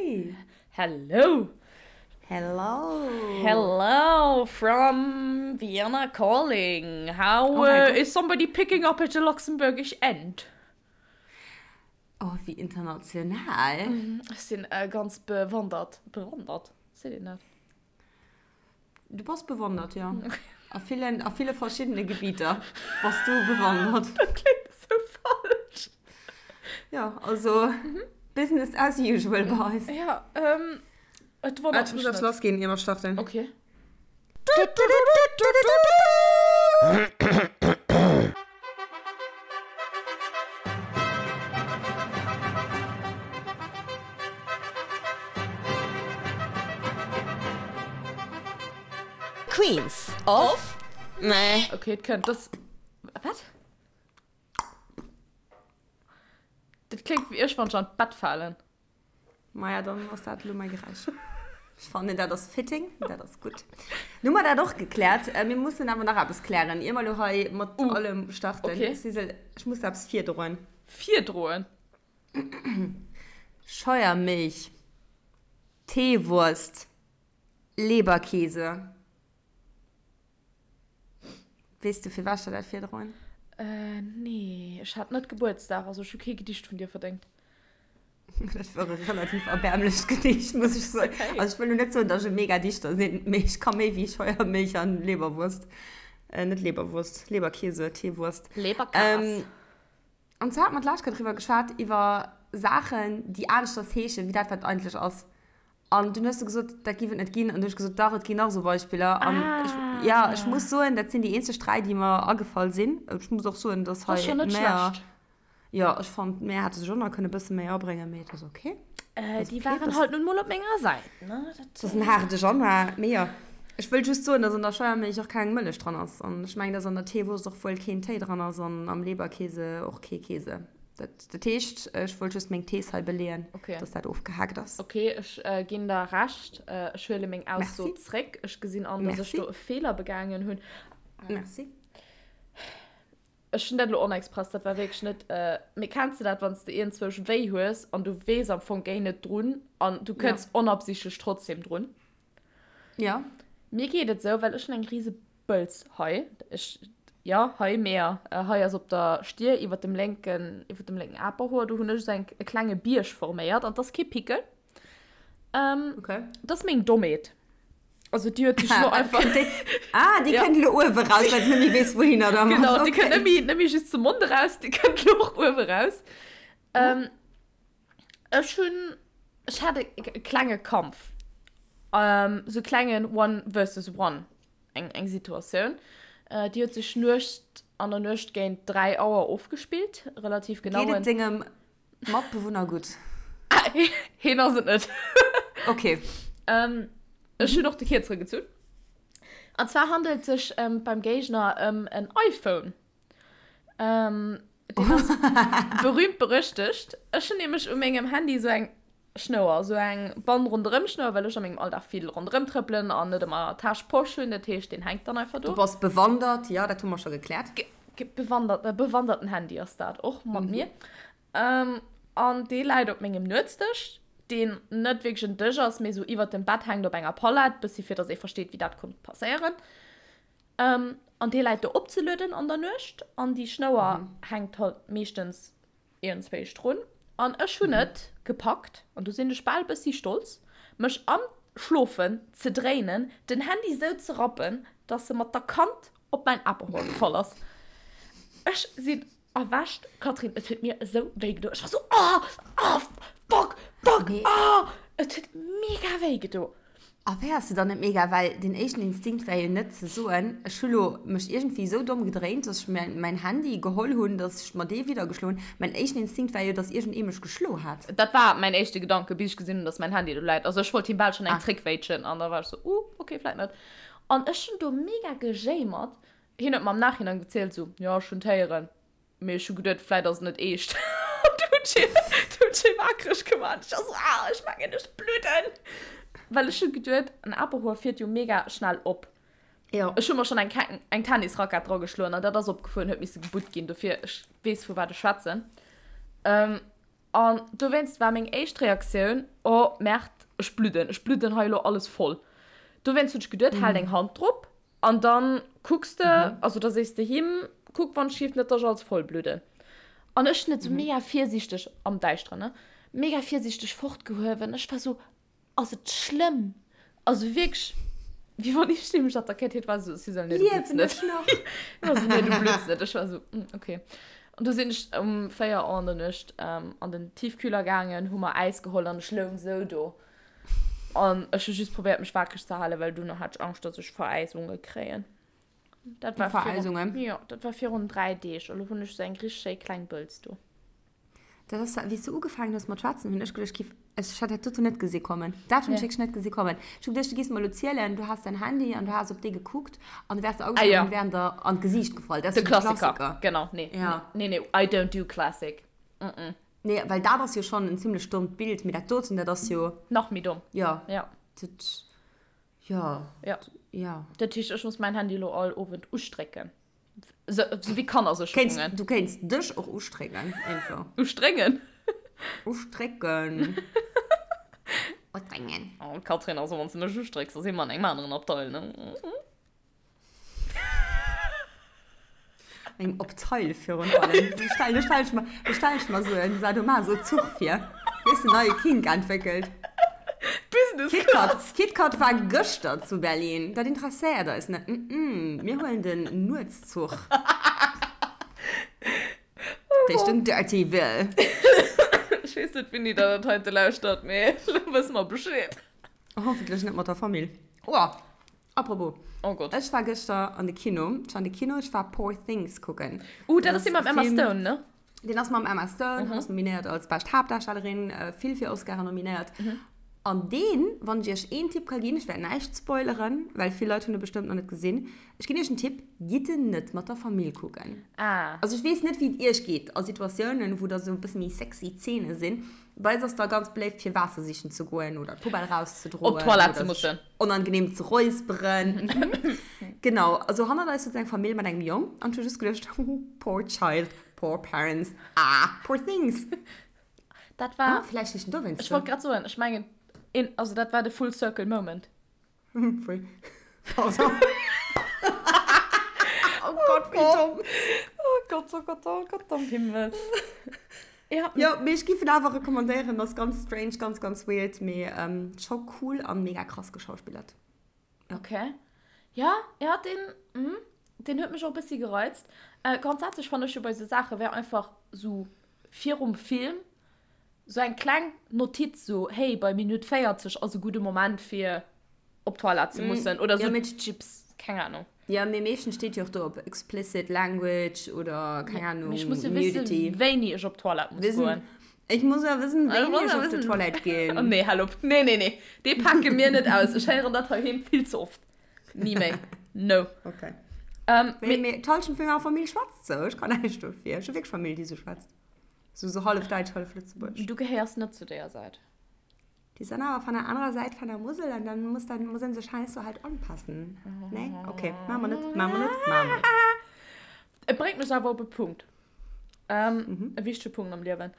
Hey! Hello! Hello! Hello from Vienna calling. How Oh my uh, God. is somebody picking up at the Luxembourgish end? Oh, wéi international. Ech sinn äh, ganz bewandert. Bewandert? Seet een dat? Du bass bewandert, jo. A villen, a ville verschiddene Gebieter bass du bewandert. Dat kléngt esou falsch. Jo, also Business as usual bei eis. Ja, ähm, et wonnert Ech muss mech eppes net. lass ginn, ier mer starten. Okay. Queens of Meh. Okay, et kënnt. Das. Wat? Dat kléngt wéi ech, wann ech an d'Bett falen. Maja, dann ass dat elo mäi Geräisch. Ech fannen, dat ass fitting, dat ass gutt. Nu hu mer dat och gekläert. Mir mussen awer nach eppes klären, ier mer elo hei mat allem starten. Okay. Sisel, ech muss der eppes virdroen. Virdroen? Scheuermilch, Teewurst, Leberkäse. Weess du, firwat ech der dat virdroen? Äh, nee. Ech hat net Gebuertsdag, also ech hu kee Gedicht vun dir verdéngt. Dat war e relativ erbäermlecht Gedicht, muss ech soen. Okay. Also ech wëll lo net soen, datt ech e mega Dichter sinn, mee ech ka méi wéi Scheuermilch an Leberwurst. Äh, net Leberwurst, Leberkäse, Teewurst. Leberkas. Ähm, An zwar hat mer d'lescht Kéier driwwer geschwat, iwwer Saachen, déi aneschters heeschen, wéi dat, wat et eigentlech ass. An dunn hues du gesot, dat giff et net ginn. An du hunn ech gesot, dach, et ginn nach esou Beispiller. An ech, jo, ech muss soen, dat sinn déi eenzeg 3, déi mer agefall sinn. Ech muss och soen, dass Dat ass hei scho net d'Mäer, schlecht. jo, ech fand, d'Mäer hätte sech och nach kënne bësse méi abréngen, mee et ass ok. Äh, Ass déi ok, waren dass. halt nun mol op menger Säit, ne? Dat ass en haarde Januar, mee jo. Ech wëll just soen, dass an der Scheuermilch och keng Mëllech dran ass. An ech mengen, dass an der Teewurst och wuel keen Téi dran ass an am Leberkäse och kee Käse. Dat, dat heescht, ech wollt just meng Thees hei beleeën, Okay. dass dat ofgehaakt ass. Okay, ech ginn der Recht. Ech huele meng Ausso Merci. zréck. Ech gesinn an, dass ech Merci. do e Feeler begaangen hunn. Merci. Ech hunn dat elo onexpress, dat war wierklech net. Mee kenns de dat, wann s de iergendzwousch wéi hues an du weess am Fong géi net drun an du Ja. kënns onabsichtlech trotzdem drun? Ja. Mir geet et sou, well ech hunn eng rise Bëlz hei. Ech, ja, hei, meer, hei ass op der Stier iwwer dem lénken, iwwer dem lénken Aperhoer, do hunn ech esou eng, e klenge Bierg forméiert an 't ass kee Pickel. Ähm, Okay. 't ass meng Dommheet. Also déi huet sech elo einfach. Kënnt déi, ah, déi Ja. kënnt elo uewe raus, well se net méi weess, wouhinner dermat. Genau, déi kënnt Okay. net méi, net méi just zum Mond eraus, déi kënnt elo och uewe raus. Ähm, Ech hunn, ech hat e klenge Kampf, sou klengen One versus One, eng eng Situatioun, déi huet sech Nuecht, an der Nuecht géint 3 Auer ofgespillt, relativ genau. Geet et dengem Matbewunner gutt? Heen ass et net. Ok. Ech hunn och de Kierzere gezunn. An zwar handelt et sech beim Géigner ëm en iPhone. Ähm, deen ass berühmt berüchtigt. Ech hunn nämlech u mengem Handy esou eng Schnouer, esou eng Band ronderëm Schnouer, well ech a mengem Alldag vill ronderëm trëppelen an net ëmmer Täsch, Posch hunn. Dat heescht, deen hänkt dann einfach Du do. bass bewandert, jo, dat hu mer scho gekläert. Ge bewandert, e bewanderten Handy ass dat och mat mir. Ähm, an dee läit op mengem Nuetsdësch, deen net wierklech en Dësch ass, mee esou iwwert dem Bett hänkt op enger Palett, bëssi fir dass ee versteet, wéi dat konnt passéieren. An dee läit do opzelueden an der Nuecht an déi Schnouer hänkt halt meeschtens iergendzwéisch drun. An ech hunn et gepackt, an do sinn ech bal bëssi stolz, mech am Schlofen ze dréinen, den Handy sou ze rappen, dass e mat der Kant op mäin Aperhorn gefall ass. Ech sinn erwächt, Catherine, et huet mir esou wéi gedo. Ech war sou, oh, oh, fuck, fuck, oh! Et huet mega wéi gedo. A wéi ass se dann net mega? Well den éischten Instinkt wär jo net ze soen, ech hu lo mech iergendwéi esou domm gedréint, dass ech mir mäin Handy geholl hunn, dass ech mer dee widder geschloen hunn. Mäin éischten Instinkt war jo, dass iergendee mech geschlo hat. Dat war mäin éischte Gedanke, bis ech gesinn hunn, dass mäin Handy do läit. Also ech wollt him bal schonn eng zréckwéitschen an da war ech sou, uh, okay, vläit net. An ech hunn do mega gejéimert. Hien huet mer am Nachhinein gezielt, sou, jo, ech hunn d'héieren. Mee ech hu geduet, vläit ass et net eescht. An du hunn ech hie, du hunn ech hie waakreg gemaach. Ech war sou, ah, ech mengen, ech bludden. Well ech hu geduet, en Aperhoer fiert jo mega schnell op. Jo. Ech hu mer schonn eng, eng Tennisrackett drageschloen an dat ass opgefuer an huet misse gebutt ginn. Dofir, ech weess, vu wat ech schwätzen. An dowéinst war meng éischt Reaktioun, Oh Merd, ech bludden, ech bludden hei elo alles voll. Dowéinst hunn ech geduet, hal deng Hand drop an dann kucks de, also da sees de him, kuck wann ech hieft net, dass ech alles voll bludden. An ech hunn et sou mega virsiichteg, am Däischteren, ne, mega virsiichteg fortgehuewen. Ech war sou, Ass et schlëmm? Also wierklech, wéi wann ech mech attackéiert hätt, war esou, si soll, nee, du blutts net. War esou, nee, du blutts net. Ech war esou, mm, okay. An du sinn ech um 4 Auer an der Nuecht ähm, an den Tiefkühler gaangen, hu mer Äis geholl an ech loung esou do. An ech hu just probéiert, mech wakereg ze halen, well duerno hat ech Angscht, dass ech Veräisunge kréien. Dat war virun, Veräisungen? jo, dat war virun 3 Deeg. Elo hunn ech esou eng richteg schéi kleng Bëlz do. Dat ass, wéi s du ugefaangen hues mat schwätzen, hunn ech geduecht, giff, ech hat dat doten net gesi kommen. Dat hunn ech wierklech net gesi kommen. Ech hu geduecht, du giffs mer elo zielen, du has däin Handy an du has op dee gekuckt an du wäers der Ah agefall ja. an wären der an d'Gesiicht gefall. Dat ass De jo de Klassiker. Klassiker. Genau, nee. Ja. Nee, nee, I don't do classic. Mm -mm. Nee, well dat ass jo schonn en zimlech dommt Bild, mee dat doten, dat ass jo. Nach méi domm. Ja. Ja. Dat, ja. Ja. Ja. Dat heescht, ech muss mäin Handy elo all Owend ustrécken. So, so wie Kéints, Kannersécherungen. du kéints dech och ustrécken, einfach. Ustréngen? Ustrécken. Ustréngen. Oh, Katrin, also wann s du mech ustrécks, da si mer an engem aneren Abteil, ne? Engem Abteil virun allem. Do stell, do stell ech mer, do stell ech mer sou en Sadomaso-Zuch vir. Weess de, neie Kink entwéckelt. Business KitKat, Class. KitKat war gëschter zu Berlin. Dat interesséiert eis net. Mm, mir huelen den Nuetszuch Richtung Dirtyville. Ech weess net, wéini der dat heite lauschtert, mee elo wësse mer Bescheed. Hoffentlech net mat der Famill. Oh, apropos. Oh Gott. Ech war gëschter an de Kino. Ech war an de Kino, ech war Poor Things kucken. Uh, dat ass dee mam Emma Stone, ne? Deen ass mam Emma Stone, mm -hmm. ass nominéiert als bescht Haaptdarstellerin, äh, vill fir Oscaren nominéiert. Mm -hmm. An deen, wann ech iech een Tipp ka ginn, ech wäert näischt spoileren, well vill Leit hunn e bestëmmt nach net gesinn. Ech ginn iech en Tipp, gitt en net mat der Famill kucken. Ah. Also ech weess net, wéi et iech geet a Situatiounen, wou da sou e bësse méi sexy Zeene sinn. Bei eis ass da ganz beléift, fir Waasser sichen ze goen oder d'Poubelle rauszedroen. Op d'Toilette ze mussen. Onangenehm ze räusperen. Genau, also hannert eis sot eng Famill mat engem Jong an ech hu just geduecht, poor child, poor parents, ah, poor things. Dat war. Ah, vläicht heescht en dowéinst Ech sou. wollt grad soen, ech mengen, een, also dat war de full circle moment. Pfui. Pardon. Oh Gott, wéi domm. Oh Gott, oh Gott, oh Gott am Himmel. Ja. Jo, mee ech giff en awer recommandéieren, ass ganz strange, ganz ganz weird, mee scho cool an mega krass geschauspillert. Ja. Okay. Ja, ja, deen, mm, deen huet mech och e bëssi gereizt. Äh, grondsätzlech fannen ech jo bei sou Saache wär einfach sou virum Film sou eng kleng Notiz sou, hey, bei Minutt 40 ass e gudde Moment fir op d'Toilette ze mussen oder Ja, sou mee Chips, keng Ahnung. Ja, mee meeschtens steet jo och do op explicit language oder keng Ahnung, Mee ech muss jo wëssen, nudity. wéini ech op d'Toilette muss goen. Ech muss jo wëssen, Ech wéini muss ech jo op wëssen. d'Toilette Oh ginn. nee, hal op. Nee, nee, nee. Dee pake mir net aus. Ech héieren dat heiheem vill ze oft. Ni méi. No. Okay. Ähm, Mee, mee, mee d'Hallschent vun menger Famill schwätzt sou. Ech kann näischt dofir. Ech hu wierklech Famill, déi sou schwätzt. Sou, sou hallef däitsch, hallef lëtzebuergesch. du gehéiers net zu deeër Säit. Die sind aber von der anderen Seite von der Mosel und dann muss dann muss sich halt so halt anpassen. Nee? Okay, machen wir nicht, machen wir nicht, machen wir nicht. Et bréngt mech awer op e Punkt. Ähm, mhm. E wichtege Punkt am Liewen.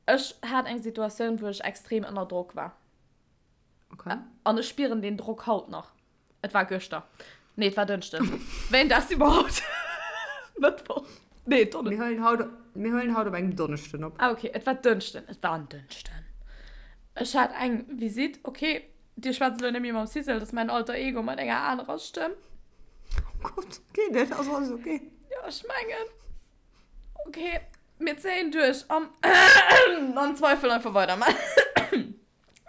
Ech hat eng Situatioun, wou ech extrem ënner Drock war. Okay. An ech spieren den Drock haut nach. Et war gëschter. Nee, et war Dënschden. Wéi en Dag si mer haut? Mëttwoch. Nee, Donne. Mir huelen haut, mir huelen haut op engem Donneschden op. Ah, okay, et war Dënschden. Et war en Dënschden. Ech hat eng Visitt. Okay, Dir schwätzt elo net méi mam Sissel, dat ass mäin Alter Ego mat enger anerer Stëmm. Oh Gott, geet et? Ass alles okay? Jo, ech mengen. Okay, mir zéien duerch an am Zweifel einfach weidermaachen.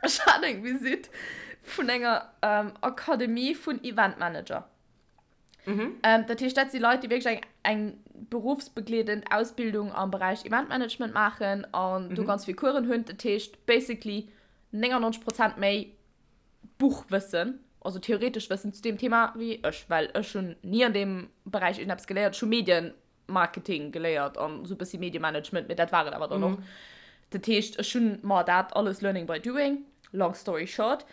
Ech hat eng Visitt vun enger ähm, Akademie vun Eventmanager. Mhm. Ähm, dat heescht, dat si Leit, déi wierklech eng, eng berufsbegleedend Ausbildung am Beräich Eventmanagement maachen an mhm. do ganz vill Coursen hunn. Dat heescht, basically 99 Prozent méi Buchwëssen, also theoretesch Wëssen zu deem Thema wéi ech, well ech hunn ni an deem Beräich irgendeppes geléiert. Ech hu Medien Marketing geléiert an esou e bëssi Mediemanagement, mee dat war et awer dann och. Dat heescht, ech hunn mer dat alles learning by doing, long story short.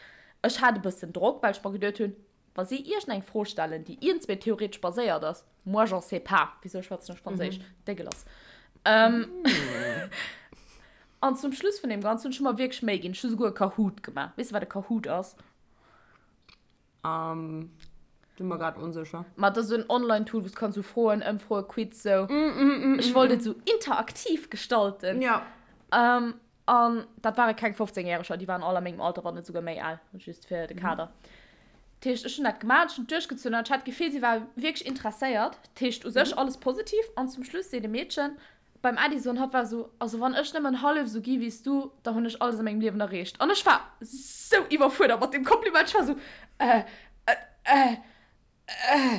Ech hat e bëssen Drock, well ech mer geduet hunn, wa si iergendeng Fro stellen, déi iergendswéi theoretesch baséiert ass, moi j'en sais pas, wisou schwätzen ech Franséisch? Dégueulasse. An zum Schluss vun deem Ganzen hunn ech mer wierklech Méi ginn. Ech hu souguer e Kahoot gemaach. Weess de, wat e Kahoot ass? Um, bin mer grad onsécher. Ma dat ass esou en Online-Tool, wou s kanns sou Froen, Ëmfroen, Quiz, sou. Ech wollt et sou interaktiv gestalten. Ja. Um, an dat ware keng 15 Järeger, déi waren all a mengem Alter, wann net souguer méi al, just fir de Kader. Dat heescht, ech hunn dat gemaach, ech hunn et duerchgezunn an ech hat d'Gefill, si war wierklech interesséiert. Dat heescht, u sech alles positiv. An zum Schluss seet e Meedchen, Beim Edison, hatt war esou, also wann ech nëmmen hallef esou gi wéi s du, da hunn ech alles a mengem Liewen erreecht. An ech war sou iwwerfuerdert mat deem Kompliment, ech war esou, äh, äh, äh, äh,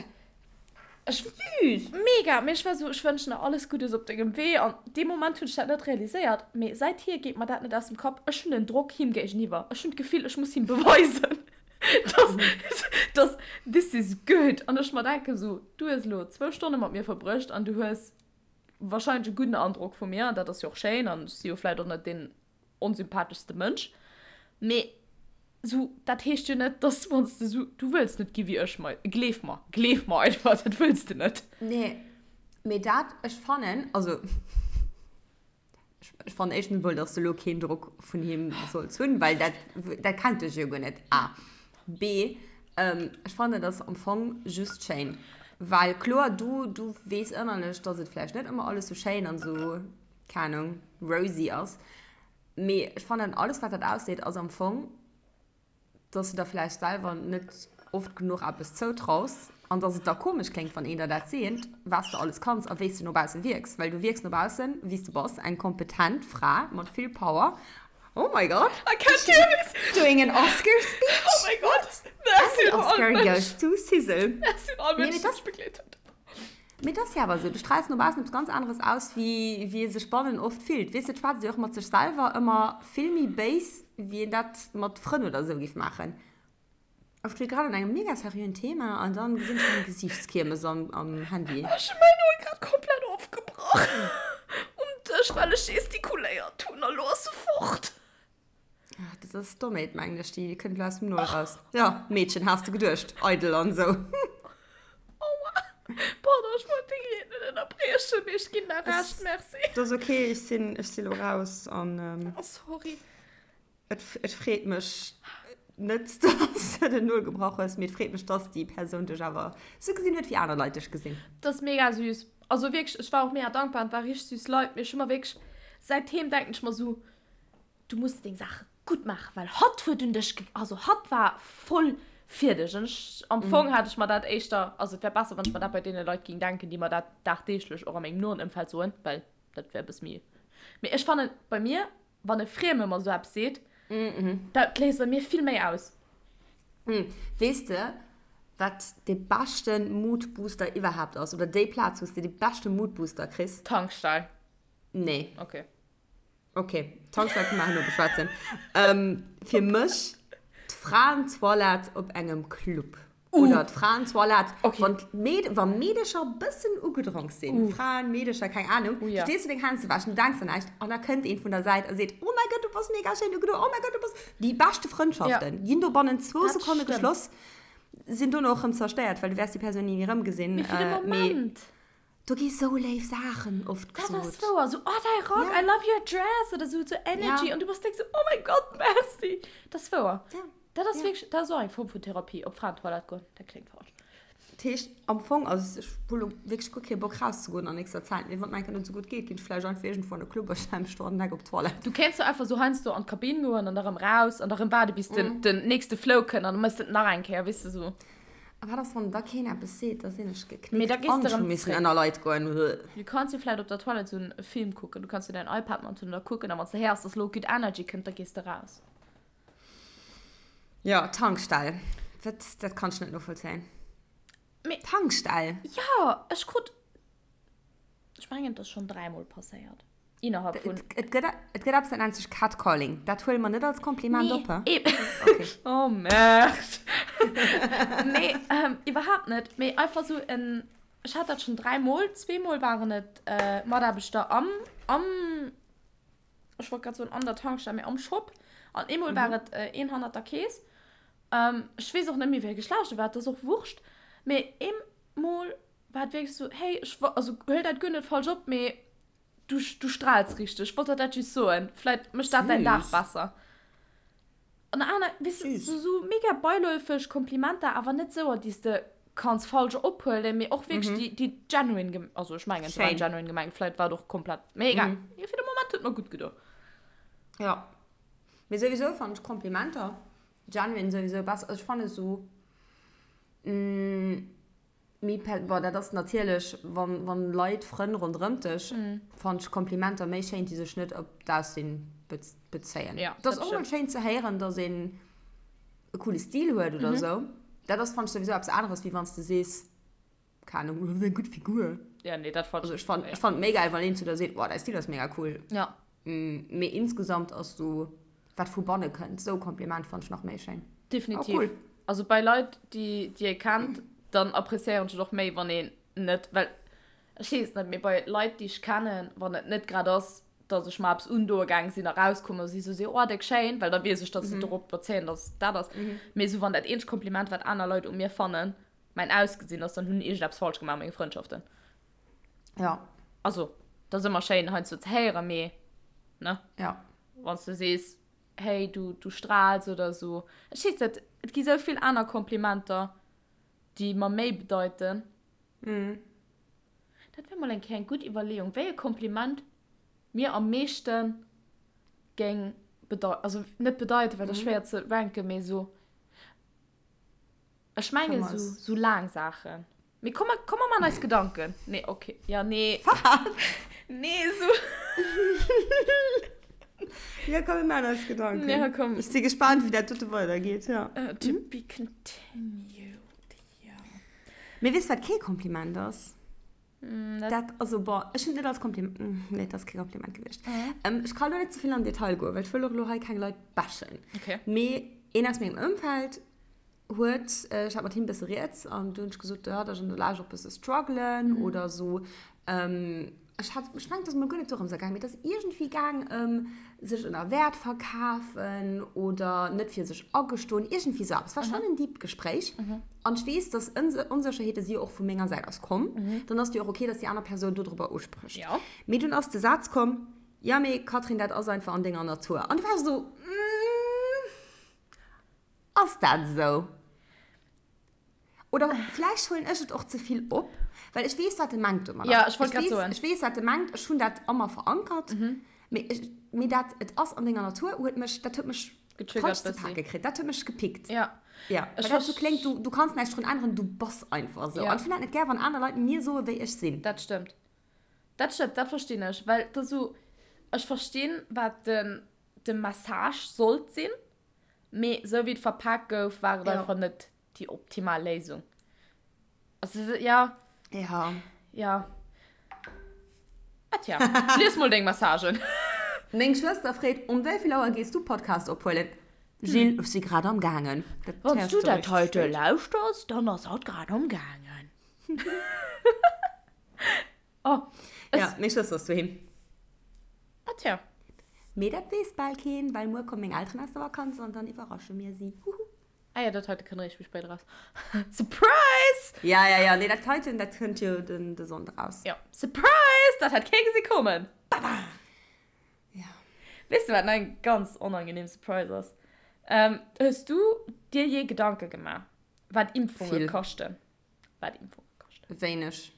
ech, Süß! Mega! Mee ech war esou, ech wënschen der alles Guddes op dengem Wee. An dee Moment hunn ech dat net realiséiert, mee säithier geet mer dat net aus dem Kapp, ech hunn en Drock him géigeniwwer, ech hunn d'Gefill, ech muss him beweisen, dass, dass this is good. An ech mer denken esou, du hues elo zwou Stonne mat mir verbruecht an du hues wahrscheinlech e gudden Androck vu mir, an dat ass jo och schéin, an ech si jo vläit och net deen onsympatheschste Mënsch, mee sou, dat heescht jo net, dass wann s de sou, du wëlls net gi wéi ech, mei, gleef mer, gleef mer einfach, dat wëlls de net. Nee, mee dat, ech fannen, also ech fannen éischtens emol, dass de elo keen Drock vun him solls hunn, well dat, dat kennt dech jo guer net, A. B, Ech fannen et ass am Fong just schéin. Well kloer, du, du weess ënnerlech, dass et vläicht net ëmmer alles sou schéin an sou, keng Ahnung, rosy ass. Mee ech fannen, alles wat dat ausseet, ass am Fong, dass du der vläicht selwer net oft genuch eppes zoutraus an dass et da komesch kléngt, wann een der dat seet, wat s de alles kanns a wéi s de no bausse wierks. Well du wierks no baussen, wéi s de bass, eng kompetent Fra mat vill Power Oh my god. I can't do this. Doing an Oscar speech. Oh my god. Merci And the Oscar goes to Sizzle. Merci un all Mënschen, déi mech begleet hunn. Mee et ass jo awer esou, du straals no baussen eppes ganz aneres aus, wéi wéi ee sech bannen oft fillt. Weess de, et schwätzt ee och mat sech selwer ëmmer vill méi béis, wéi een dat mat Frënn oder esou géif maachen. Ech steet grad an engem mega seriöen Thema an dann gesinn ech meng Gesiichtskiermes am, am Handy. Ech hun mäin Nol grad komplett ofgebrach um Dësch well ech gestikuléiert hun a lo ass se fort. Ach, dat ass Dommheet mengen ech, déi kënnt lo aus dem Nol raus. Ja, Meedchen, has de geduecht, eidel an sou. Aua, pardon, ech wollt deng Ried net ënnerbriechen, mee ech ginn der Recht, merci. Dat ass ok, ech sinn, ech si lo raus an. Oh, sorry. Et, et freet mech net, dass de den Nol gebrach hues, mee et freet mech, dass déi Persoun dech awer sou gesinn huet, wéi aner Leit dech gesinn. Dat ass mega süß. Also wierklech, ech war och mega dankbar an et war richteg süß Leit, mee ech hu mer wierklech, säitdeem denken ech mer sou, du muss deng Saache gutt maachen, well hatt huet un dech, also hatt war voll fir dech. An ech, am Fong hat ech mer dat éischter, also et wär besser, wann ech mer dat bei deene Leit géing denken, déi mer dat dagdeeglech och a mengem noen Ëmfeld soen, well dat wär e bësse méi, mee ech fannen, bei mir Wann e Frieme mer sou eppes seet, dat léist a mir vill méi aus. Weess de, wat de beschte Moodbooster iwwerhaapt ass? Oder déi Plaz, wou s de de beschte Moodbooster kriss? Tankstell. Nee. Ok. Ok, Tankstell kënne mer herno beschwätzen. Fir mech d'Fraentoilette op engem Club. Oder d'Fraentoilette, Okay. wann d'Meed, wa Meedecher bëssen ugedronk sinn, Uh. Fraen, Meedecher, keng Ahnung, Uh, ja. stees du deng Hänn ze wäschen, du denks un näischt an da kënnt een vun der Säit a seet, Oh mäi Gott, du bass mega schéin ugedo, oh mäi Gott, du bass. Déi beschte Frëndschaften Ja. ginn do bannent zwou Dat Sekonne stëmmt. geschloss, sinn dono och rëm zerstéiert, well du wäers déi Persoun ni méi erëmgesinn. Mee fir de Äh, mee Moment. do gi sou léif Saachen oft Dat ass gesot. wouer, sou, oh däi Rock, Ja. I love your dress oder sou, sou Energy Ja. an du bass direkt sou, oh mäi Gott, merci. Dat ass wouer. Ja. Dat ass Ja. wierklech, dat ass och eng Form vun Therapie, op Fraentoilette goen, dat kléngt falsch. Dat heescht, am Fong, also ech hu lo wierklech guer kee Bock rauszegoen an nächster Zäit, mee wann et mir eng Kéier net esou gutt geet, ginn ech vläicht einfach iergendwou an e Club a stelle mech do an den Eck op d'Toilette. Du kéints jo einfach sou heiansdo an d'Kabinn goen an da rëm raus an da rëm waarde bis den, den nächste Flow kënnt an da mëss de et nach eng Kéier, weess de, sou. A wat ass, wann da keen eppes seet? Da sinn ech geknickt Mee da gees an de ech hu rëm missen zréck. ënner Leit goen. Du kanns jo vläicht op der Toilette sou e Film kucken, du kanns jo däin iPad mat hunn an da kucken a wann s de héiers, dass lo gutt Energy kënnt, da gees de raus. Jo, Tankstell. Dat, dat kann ech net novollzéien. Mee. Tankstell? Jo, ech krut, ech mengen, et ass schonn dräimol passéiert. Innerhalb vun. Et gëtt, et gëtt eppes, dat nennt sech Catcalling. Dat huele mer net als Kompliment Nee, op, he? eben. Okay. Oh, merde. Nee, ähm, iwwerhaapt net. Mee einfach sou en, ech hat dat schonn dräimol. Zweemol waren et Mataarbechter am, am. ech wollt grad soen an der Tankstell, mee am Shop. An eemol war et een hannert der Kees. Ech weess och net méi, wéi e Geschlecht e war, et ass och wurscht. Mee eemol war et wierklech esou, hey, ech, also huel dat guer net falsch op, mee. Du, du strahlst richteg. Ech wollt der dat just soen. Vläit mécht dat däin Dag besser. An aner, weess de, sou, sou mega beiläufeg Komplimenter, awer net souer, déi s de kanns falsch ophuelen, mee och wierklech déi, déi genuine gem-, also ech mengen, se waren genuine gemengt, vläit war et och komplett, mee egal. Fir de Moment huet mer gutt gedo. Jo. Mee souwisou fannen ech Komplimenter genuine souwisou besser. Also ech fanne sou, Méi per, bon, dat ass natierlech, wann, wann Leit, Frënn ronderëmt dech, fannen ech Komplimenter méi schéin, déi sech net op d'Aussinn bezéien. Ja, Et ass och mol schéin ze héieren, dass een e coole Stil huet oder esou. Dat ass, fannen ech, souwisou eppes aneres, wéi wann s de sees, keng Ahnung, du hues eng gutt Figur. Ja, nee, dat fannen ech. Also ech fannen, ech fannen et méi gäil, wann een zu der seet, wow, däi Stil ass mega cool. Ja. Mee insgesamt ass sou, wat vu banne kënnt, sou Kompliment fannen ech nach méi schéin. Definitiv. Oh, cool. Also bei Leit, déi déi ee kennt, dann appreciéieren ech et och méi, wann een net, well ech weess net, mee bei Leit, déi ech kennen, wann et net grad ass, dass ech mer eppes undoe gaang sinn a rauskomm a si sou si, oh déck schéin, well da weess ech, dass se dorop bezéien, dass dat ass. Mee sou wann dat eenzegt Kompliment, wat aner Leit u mir fannen, mäin Ausgesinn ass, dann hunn iergendeppes falsch gemaach a menge Frëndschaften. Ja. Also, dat ass ëmmer schéin heiansdo ze héieren, mee, ne? Ja. Wann s du sees, hey, du, du strahlst oder esou. Ech weess net, et gi sou vill aner Komplimenter, déi mer méi bedeiten. Mhm. Dat wär mol eng Kéier eng gutt Iwwerleeung, wéi e Kompliment mir am meeschte géing bedeuten. Also net bedeiten, well dat ass schwéier ze ranken, mee esou, ech mengen esou, esou laang Saachen. Mee komm, komm mer man eis Gedanken. Nee, okay. Ja, nee. Wat? Nee, so. Ja, komm, mir man eis Gedanken. Ja, komm. Ech si gespaant, wéi dat dote weidergeet, ja. Uh, to be continued, ja. Mee weess, wat kee Kompliment ass? Mm, dat, dat, also, bon, ech hunn et net als Kompliment, nee, dat ass kee Kompliment gewiescht. Mhm. Ähm, ech kann elo net ze vill an Detail goen, well ech wëll och elo hei keng Leit bashen. Okay. Mee een aus mengem Ëmfeld huet, ech hat mat him bësse rieds an du hunn ech gesot, jo, datt ech an der Lescht och bësse struggelen oder esou. Ech hat, ech mengen, et ass mol guer net dorëms gaang, mee et ass iergendwéi gaang ëm sech ënner Wäert verkafen oder net fir sech agestoen, iergendwéi esou eppes. Et war schonn en deept Gespréich an ech weess, datt Onsécherheete si jo och vu menger Säit aus komm. Dann ass et jo och ok, datt déi aner Persoun dodrobber usprécht. Mee dunn ass de Saz komm, Jo, mee Catherine, dat ass einfach an denger Natur. An du war ech esou, Ass dat esou? Oder vläicht huelen ech et och ze vill op, well ech weess, wat e mengt domadder. Ja, ech wollt grad soen. Ech weess, wat e mengt, ech hunn dat a mer verankert. Mee ech, mee dat et ass an denger Natur huet mech, dat huet mech Getriggert falsch ze bëssi. pake kritt. Dat huet mech gepickt. Ja. Ja, Ech well dat sou verst- kléngt, du, du kanns näischt drun änneren, du bass einfach esou. Ja. An ech hunn dat net gär, wann aner Leit mir soen, wéi ech sinn. Dat stëmmt. Dat stëmmt, dat verstinn ech. Well et ass esou, ech verstinn, wat den, de Message sollt sinn. Mee sou wéi et verpaakt gouf, war et einfach net déi optimal Léisung. Also, ja. Ja. Ja. Ah tja, lies mol deng Messagen. Meng Schwëster freet, Um wéi vill Auer gees du Podcast ophuelen? Jill, Ech si grad am gaangen. Wann s du dat heite lauschters, dann ass hatt grad am gaangen. Oh, es. Ja, meng Schwëster ass doheem. Ah tja. Mee dat weess bal keen, well muer komme meng Elteren aus der Vakanz an dann iwwerrasche mir si. Huhu. Ah ja, dat heite kënnt eréischt méi spéit eraus. Surprise! Ja, ja, ja, nee, dat heiten, dat kënnt jo den, de Sonndeg eraus. Ja, Surprise! Dat hat kee gesi kommen. Baba! Ja. Weess de, wat nach eng ganz onangenehm Surprise ass? Ähm, hues du dir je Gedanke gemaach, wat Impfunge Vill. kaschten? Wat Impfunge kaschten? Wéineg.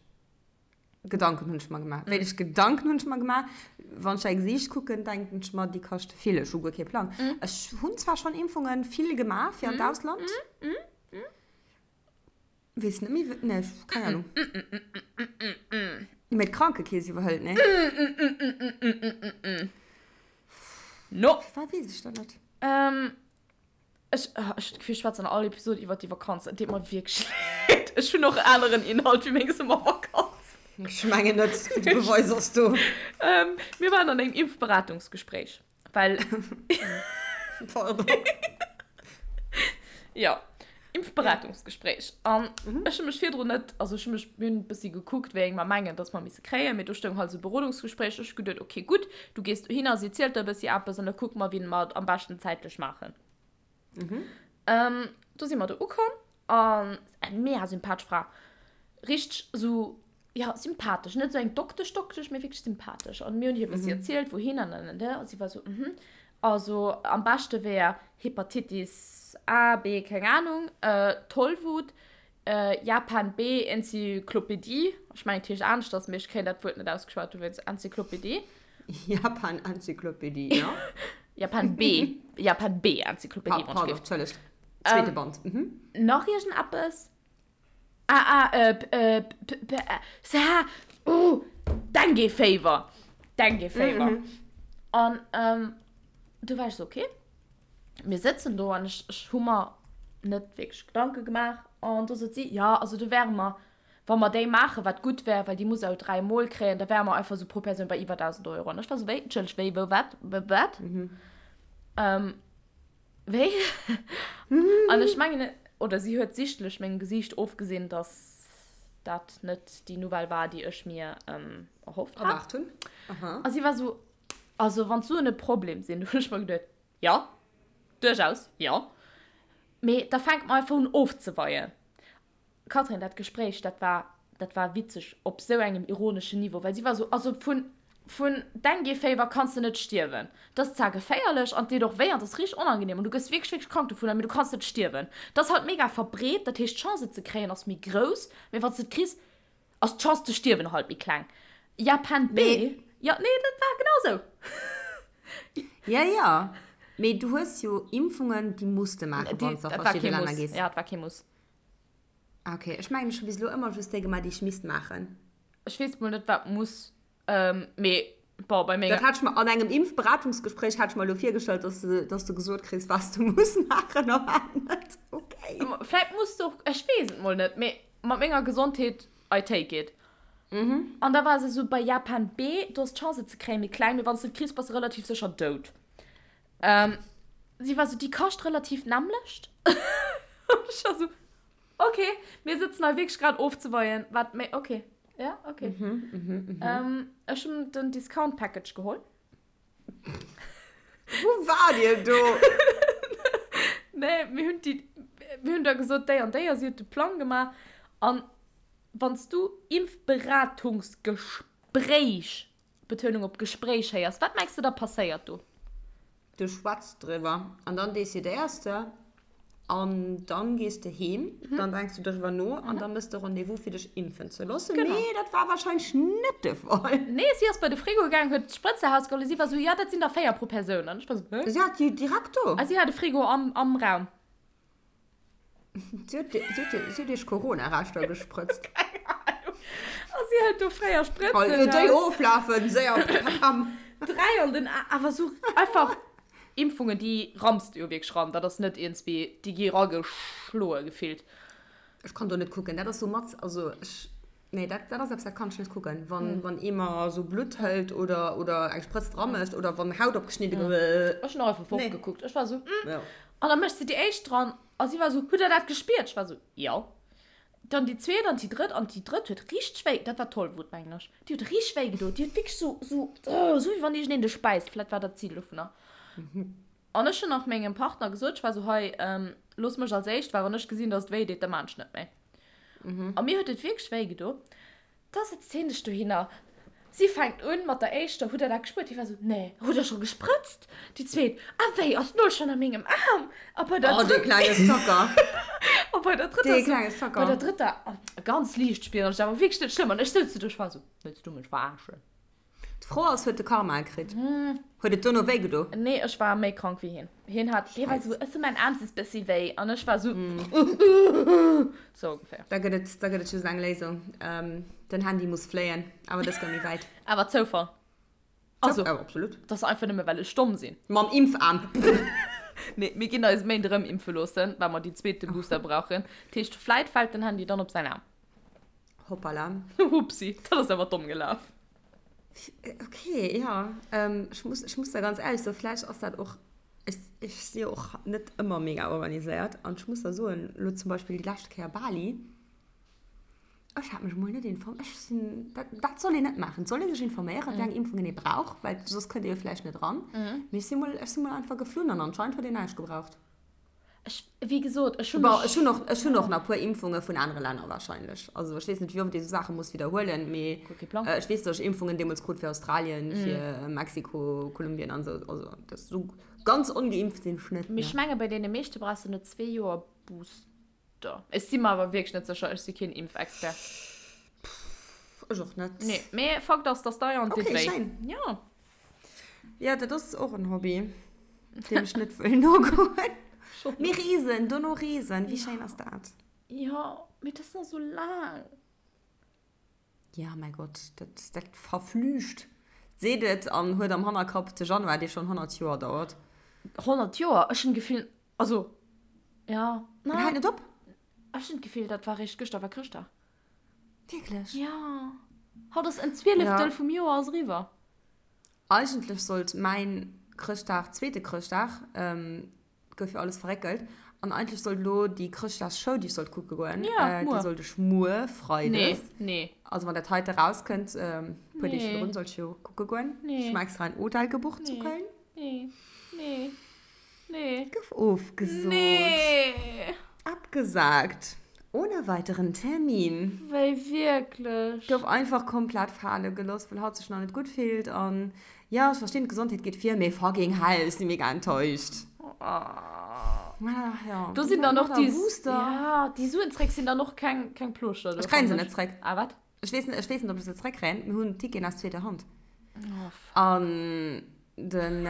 Gedanken hunn ech mer gemaach. Wéineg Gedanken hunn ech mer gemaach. Wann ech däi Gesiicht kucken, denken ech mer, déi kaschte vill. Ech hu guer kee Plang. Ech hunn zwar schonn Impfungen vill gemaach fir an d'Ausland. Weess net méi, wéi, nee, keng Ahnung. Mee d'Krankekeess iwwerhëlt, nee? No. Firwat weess ech dat net? Ech, ech hunn d'Gefill, ech schwätzen an all Episod iwwert déi Vakanz. Et deet mer wierklech leed. Ech hunn och aneren Inhalt wéi meng Summervakanz. Ech mengen net, de Beweis ass do. Mir waren an engem Impfberatungsgespréich, well. Pardon. Jo, Impfberatungsgespréich. An ech hu mech virdrun net, also ech hu mech, mir hunn e bëssi gekuckt, wéi eng mer mengen, dass mer misse kréien, mee do stoung halt esou Berodungsgespréich. Ech hu geduet, okay, gutt, du gees dohinner, si zielt der e bëssi eppes an da kucke mer, wéi mer et am beschten zäitlech maachen. Mhm. Ähm, do si mer do ukomm an eng mega sympathesch Fra. Richteg esou. Jo, sympathesch. Net esou eng Doktesch Doktesch, mee wierklech sympathesch. An mir hunn hir e bëssi erzielt, wouhin an an an an. A si war esou, mhm, also am beschte wär Hepatitis A, B, keng Anung, Tollwut, Japan B, Enzyklopedie, ech mengen et heescht aneschters, mee ech kréien dat Wuert net ausgeschwat, dowéinst Enzyklopedie. Japan Enzyklopedie, jo. Japan B, Japan B Enzyklopedie, wann ech géif. Pardon, Entschëllegt. Zweete Band, mhm. Nach iergendeppes? Ah, ah, äh, p, äh, p, p, äh, s, h, uh, Dengue Fever. Dengue Fever. Mhm. An, ähm, du war ich so, okay. Mir sëtzen do an ech, ech hu mer net wierklech Gedanke gemaach. An do sot si, ja, also do wäre mer, wa mer déi maachen, wat gutt wär, well déi muss au 3 Mol kréien, da wäre mer einfach sou pro Persoun bei iwwer 1.000 Euro. An ech war sou, wéi, Entschëlleg, wéi, wou, wat, wat? Mhm. Ähm, Wéi? An ech mengen, oder si huet sichtlech mengem Gesiicht ofgesinn, dass dat net déi Nouvelle war, déi ech mir erhofft hat. Erwaart hunn. Aha. A si war esou, Also, wann d'Suen e Problem sinn, du hunn ech mer geduet, jo, duerchaus, jo. Mee da fänke mer einfach un ofzeweien. Catherine, dat Gespréich, dat war, dat war witzeg op sou engem ironeschen Niveau, well si war sou, also vun, vun Dengue-Féiwer kanns de net stierwen. Dat ass zwar geféierlech an et deet och wéi an et ass richteg onangenehm an du gëss wierklech, wierklech krank dovunner, mee du kanns net stierwen. Dat ass halt mega verbreet, dat heescht d'Chance et ze kréien ass méi grouss, mee wann s de et kriss, ass d'Chance ze stierwen halt méi kleng. Japan B, jo, nee, dat war genau sou. Ja, ja, mee du hues jo Impfungen, déi muss de maachen, wann s de a Dat war verschidde kee Länner Muss, gees. ja, dat war kee Muss. Ah, okay. Ech mengen, ech hu bis elo ëmmer just déi gemaach, déi ech misst maachen. Ech weess mol net, wat muss, mee bon, bei menger. Dat hat ech mer an engem Impfberatungsgespréich hat ech mer elo virgestallt, dass de, dass de gesot kriss, wat s du muss maachen a wat net. Okay. Vläit muss de och, ech weess et mol net, mee mat menger Gesondheet, I take it. An da war se esou, bei Japan B, do ass d'Chance et ze kréien méi kleng, mee wann s de et kriss, bass de relativ sécher dout. Si war esou, déi kascht relativ d'nämmlecht. An ech war esou, Ok, mir sëtzen hei wierklech grad ofzeweien, wat méi, ok, ja, ok. Ech hunn den Discount Package geholl. Wou waart Dir do? Nee, mir hunn déi, mir hunn da gesot, déi an déi, a si huet de Plang gemaach. An wann s du Impfberatungsgespréich, Betounung op Gespréich, héiers, wat mengs de da passéiert do? Du schwätz driwwer an dann decidéiers de an dann gees de heem, dann denks du driwwer no an dann mëss de Rendez-vous fir dech impfen ze loossen. Genau. Mee dat war wahrscheinlech net de Fall. Nee, si ass bei de Frigo gaang, huet d'Sprëtze rausgeholl a si war sou, jo, dat sinn der 4 pro Persoun. An ech war sou, hä? Si hat déi direkt do. A si hat e Frigo am, am Raum. Si huet, si huet, si huet iech Corona-Reschter gesprëtzt. Keng Ahnung. A si hëlt do fréier Sprëtzen Hei, déi raus. oflafen, séier, pam. 3 an den A, awer sou einfach Impfungen, déi ramms de jo wierklech ran. Dat ass net iergendswéi, déi gi rageschloe gefillt. Ech kann do net kucken, dat ass sou mat, also ech, nee, dat, dat ass eppes, dat kann ech net kucken, wann, wann ee mer sou Blutt hëlt oder, oder eng Sprëtz dra mécht oder wann Haut opgeschnidde gëtt. Ech hunn och einfach Nee. fortgekuckt. Ech war sou, hm. Ja. An da mécht se déi éischt dran a si war sou, Hutt der dat gespiert? Ech war sou, Jo. Dann déi zweet an déi drëtt an déi drëtt huet richteg wéi, dat war d'Tollwut, mengen ech, déi huet richteg wéi gedo. Déi huet wierklech sou, sou, sou wéi wann iergendeen dech bäisst. Vläit war dat d'Zil dovunner. An ech hunn nach mengem Partner gesot, ech war sou, Hei, looss mech als éischt, well wann ech gesinn, dass et wéi deet, da maan ech net méi. A mir huet et wierklech wéi gedo. Da sëtzt hien sech dohinner. Si fänkt un mat der éischter, Hutt der dat gespuert? Hie war esou, Nee. Hutt der scho gesprëtzt? Déi zweet, A wéi, ass d'Nol schonn a mengem Aarm? A bei der Oh, dee drëtter, klenge Zocker. a bei der drëtter Dee esou, klenge bei Zocker. der drëtter, ganz liicht spieren ech, awer wierklech net schlëmm. An ech souz do, ech war esou, Wëlls du mech verarschen? D'Fro ass, huet de Karma e kritt? Huet et dono wéi gedo? Nee, ech war méi krank wéi hien. Hien hat, hie war esou, ech hu mäin Aarm sest bëssi wéi. An ech war esou, sou ongeféier. Da gëtt et, da gëtt et just eng Léisung, den Handy muss fléien, awer dës goung méi wäit. Awer Zoufall. Also, Awer absolut. dat ass einfach nëmme well ech domm sinn. Mam Impfaarm. Nee, mir ginn eis Méint erëm impfe loossen, well mer déi zweete Booster brauchen. Dat heescht, vläit fält den Handy dann op säin Aarm. Hoppala. Hupsi, dat ass awer domm gelaf. Okay, ja. Ähm, ech muss, ech muss da ganz ehrlech soen, vläicht ass dat och, ech, ech si jo och net ëmmer mega organiséiert an ech muss da soen, elo zum Beispill déi lescht Kéier Bali, ech hat mech emol net inform, ech sinn, dat, dat soll een net maachen, et soll ee sech informéieren, wéi eng Impfungen ee brauch, well soss kënnt ee jo vläicht net eran. Mee ech si mol, ech si mol einfach geflunn an anscheinend huet een näischt gebraucht. Ech, wéi gesot, ech hunn Bon, ech hunn och, ech hunn och nach e puer Impfunge vun anere Länner wahrscheinlech. Also ech weess net, wéi oft ee sou Saache muss widderhuelen, mee Guer kee Plang. ech weess, datt ech Impfungen deemools krut fir Australien, fir Mexiko, Kolumbien an esou. Also dat esou ganz ongeimpft sinn ech net, Mee ech ne. menge bei deene meeschte brauchs de no zwee Joer Booster. Ech si mer awer wierklech net sécher, ech si keen Impfexpert. Ech och net. Nee, mee Fakt ass, dass dei an deet wéi. Okay, schéin. Jo. Jo, dat ass och en Hobby, deem ech net wëll nogoen. Mee reesen, dono reesen, wéi schéin ass dat? Jo, mee dat ass nach esou laang. Ja, mäi Gott, dat, dat verflücht. Seet et an huet am Hannerkapp de Januar, dee schonn 100 Joer dauert. 100 Joer? Ech hunn d'Gefill, also, jo, En hält net op. Ech hunn d'Gefill, dat war réischt gëschter war Chrëschtdag. Wierklech? Jo. Haut ass en Zwieleftel vum Joer ass eriwwer. Eigentlech sollt mäin Chrëschtdag, zweete Chrëschtdag, gouf jo alles verréckelt, an eigentlech sollt elo déi Chrëschtdagsshow, déi ech sollt kucke goen, déi sollt ech muer, Freides, nee, also wann dat heite rauskënnt, e puer Deeg virdrun, sollt ech jo kucke goen. Ech hu mer extra en Hotel gebucht zu Köln. Nee, nee. Nee. Gouf ofgesot. Nee. Abgesagt. Ohne weiteren Termin. Wéi wierklech? Gouf einfach komplett fale geloss, well hatt sech nach net gutt fillt. An jo, ech verstinn, d'Gesondheet geet vir, mee fucking hell, ech si mega enttäuscht. Oh. Ja. Do sinn dann och déi, ja, déi Suen zréck sinn dann och keng, keng Plooschter. Ech kréien se net zréck. Ah, wat? Ech weess net, ech weess net, ob ech se zréckkréien. Mir hunn Ticketen aus zweeter Hand. Oh, fuck. An den,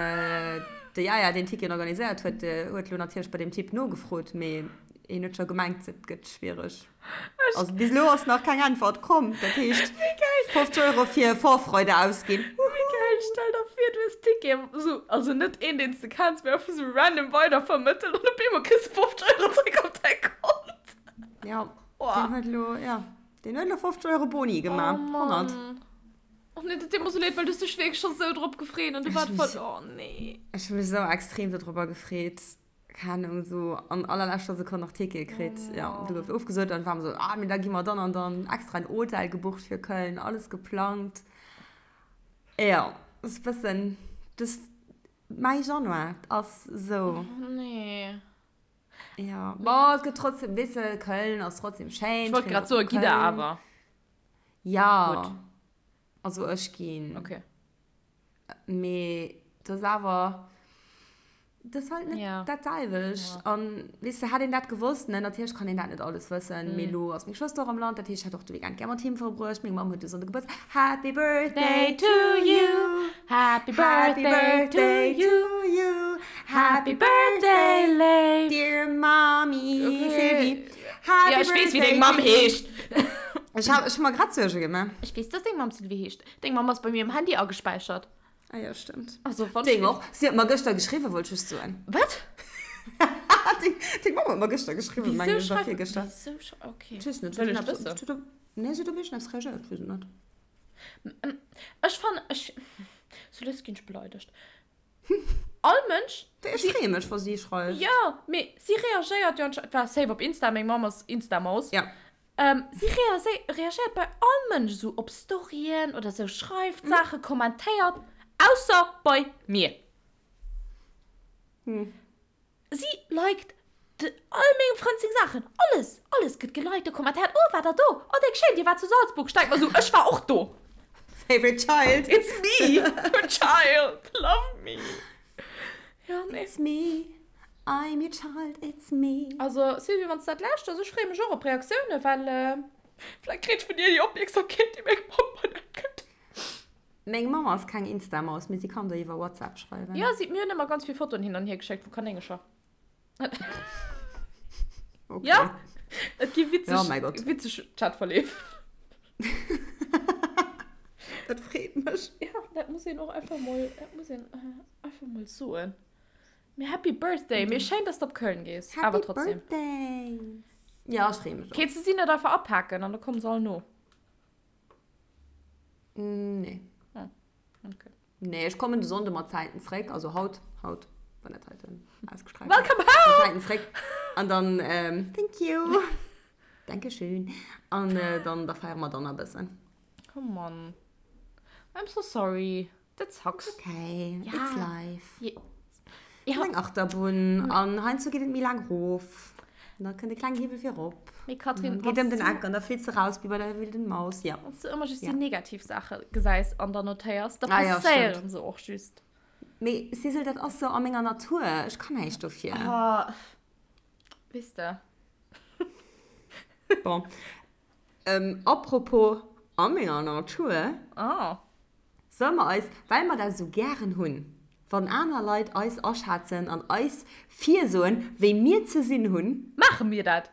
de Jaja, deen d'Ticketen organiséiert huet, huet elo natierlech bei deem Typ nogefrot, mee hien huet scho gemengt, et gëtt schwiereg. Also bis elo ass nach keng Äntwert komm. Dat heescht, 50 Euro fir Vorfreude ausginn. Wéi geil! Stell der vir, du hues Ticketen, esou, also net een, deen s de kenns, mee einfach esou random weidervermëttelt an op eemol kriss de 50 Euro zréck op däi Kont. Ja, deen huet elo, ja. Deen huet elo 50 Euro Boni gemaach. Oh Mann. Oh nee, dat deet mer sou leed, well du hues dech wierklech scho sou drop gefreet an du waart voll, oh nee. Ech hu mech sou extrem dodropper gefreet. Keng Ahnung, sou an allerleschter Sekonn nach Ticket kritt. Ja, du gouf ofgesot an war mer sou, ah, mee da gi mer dann an dann extra en Hotel gebucht fir Köln, alles geplangt. Ja, ass e bëssen, das, mäi Januar ass sou. Oh nee. Ja, bon, et gëtt trotzdem, weess de, Köln ass trotzdem schéin. Ech wollt grad soen, gitt der awer? Ja. Gutt. Also ech ginn. Okay. Mee dat ass awer, dat ass halt net ja. dat selwecht. Ja. An weess de, hätt een dat gewosst, ne, natierlech kann een dat net alles wëssen, mm. mee lo ass meng Schwëster och am Land, dat heescht, ech hätt och de Weekend gär mat him verbruecht. Meng Mamm huet de Sonnde Gebuertsdag. Happy Birthday to you. Happy birthday to you. Happy birthday, Léif. Dear Mommy, Okay. Sylvie. Happy Ja, ech weess, wéi birthday deng Mamm to you. heescht. Ech hab, ech hu mer grad Suerge gemaach. Ech weess, dass deng Mamm Sylvie heescht. Deng Mamm ass bei mir um Handy agespäichert. Ah ja, stimmt. Also, wann Deng och. Si huet mer gëschter geschriwwen, wollt ech just soen. Wat? Deng, deng Mamm huet mer gëschter geschriwwen, mengen Wieso ech, oder schreift. virgëschter. Wieso schrei. Okay. Ech weess net. Wëll ech wëssen. Nee, si huet op iergendeppes reagéiert, ech weess et net. Ech fannen, ech, sou lues ginn ech beleidegt. All Mënsch. Ech freeë mech, wa si schreift. Jo, mee si reagéiert jo anscheinend, war safe op Insta, meng Mamm ass Insta-Maus. Ja. Si reagéiert bei all Mënsch esou op Storyen oder sou, schreift Saachen, kommentéiert, ausser bei mir. Si liked all mengem Frënd seng Saachen, alles, alles gëtt geliked a kommentéiert, oh waart der do, oh déck schéin, dir waart zu Salzburg, ech denk mer sou, ech war och do. Favorite child. It's me, your child, love me. Ja, nee. It's me, I'm your child, it's me. Also Sylvie, wann s dat lauschters, ech freeë mech och op Reaktiounen, well vläicht kritt ech vun dir déi Opmierksamkeet, déi meng Mamm mer net gëtt. Meng Mamm ass keng Insta-Maus, mee si kann der iwwer WhatsApp schreiwen. Jo, si, mir hunn ëmmer ganz vill Fotoen hin an hier geschéckt vu Kanéngercher. Okay. Ja, et gi witzeg, Ja, mäi Gott. witzeg Chatverleef. Dat freet mech. Ja, dat muss een och einfach mol, dat muss een einfach mol soen. Mee Happy Birthday! Mee schéin, dass de op Köln gees. Happy Awer trotzdem. Birthday! Ja, ech freeë mech och. Kéints de si net einfach apaken an da komme se all no? Nee. Ah, okay. Nee, ech kommen de Sonnde mat Zäiten zréck, also haut, haut, wann dat heiten ausgestrahlt Welcome gëtt. Mat home! Zäiten zréck. An dann, ähm, thank you. Dankeschön. An äh, dann, da feiere mer dann e bëssen. Oh Mann. I'm so sorry. Dat sucks. Okay, Ja. it's life. Je. Ja. Eng Achterbunn an heiansdo geet et méi laang rof. An da kënnt e kleng Hiwwel fir erop. Mee Katrin, Geet ëm den Eck an da flitt se raus wéi bei der wilden Maus. Ja. Wann s du ëmmer just déi negativ Saache gesäis an dann notéiers, da Ah ja, passéieren stimmt. se och just. Mee Sissel, dat ass sou a menger Natur. Ech kann näischt dofir. Ah, weess de. Bon. Ähm, apropos a menger Natur. Ah. Solle mer eis, well mer dat esou gären hunn, wann aner Leit eis aschätzen an eis virsoen, wéi mir ze sinn hunn. Maache mir dat?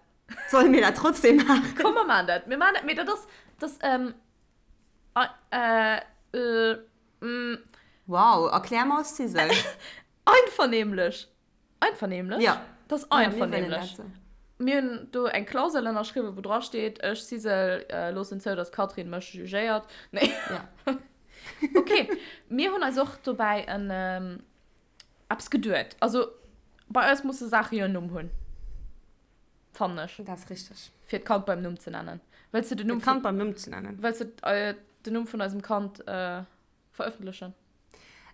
Solle mir dat trotzdem maachen? Komm, mer maachen dat. Mir maachen dat, mee dat ass, dat ass, ähm, äh, äh, mm. Wow, erklär mer Sissel. Einvernehmlech. Einvernehmlech? Ja. Dat ass einvernehmlech. Mir hunn do eng Klausel ënnerschriwwen, wou dra steet, ech, Sisel, loossen zou, datt d'Catherine mech jugéiert. Nee. Ja. Ok, mir hunn eis och dobäi en eppes geduet. Also, bei eis musse Saache jo en Numm hunn, fannen ech. Dat ass richteg. Fir d'Kand beim Numm ze nennen. Wëlls de den Numm vun. D'Kand beim Numm ze nennen. Wëlls de den Numm vun eisem Kand verëffentlechen?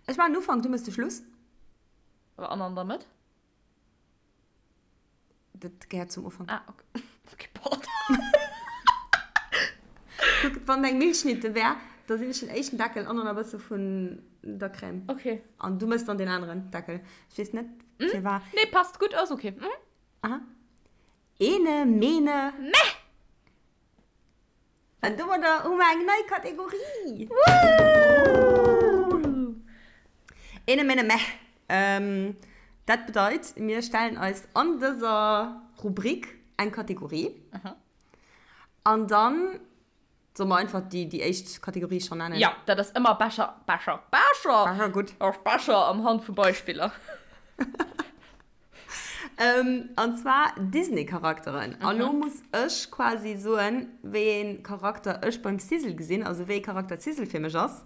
Ech maachen den Ufank, du méchs de Schluss. An an der Mëtt? Dat gehéiert zum Ufank. Ah, okay. Okay, pardon. Kuck, wann eng Milchschnitte wär, da sinn ech den éischten Deckel an dann e bësse vun der Crème. Okay. An du mëss dann deen aneren Deckel. Ech weess net, firwat. Nee, passt gutt, ass okay. Mhm. Aha. Ene, mene. Meh! An domadder hu mer eng nei Kategorie! Woo! Ene mene meh. Dat bedeit, mir stellen eis an dëser Rubrik eng Kategorie. An dann solle mer einfach déi, déi éischt Kategorie schonn nennen? Jo, dat ass ëmmer besser, besser, besser! Besser, gutt. Ass besser am Hand vu Beispiller. An zwar Disney-Charakteren. A lo muss ech quasi soen, wéi ee Charakter ech beim Sizzle gesinn, also wéi ee Charakter d'Sizzle fir mech ass.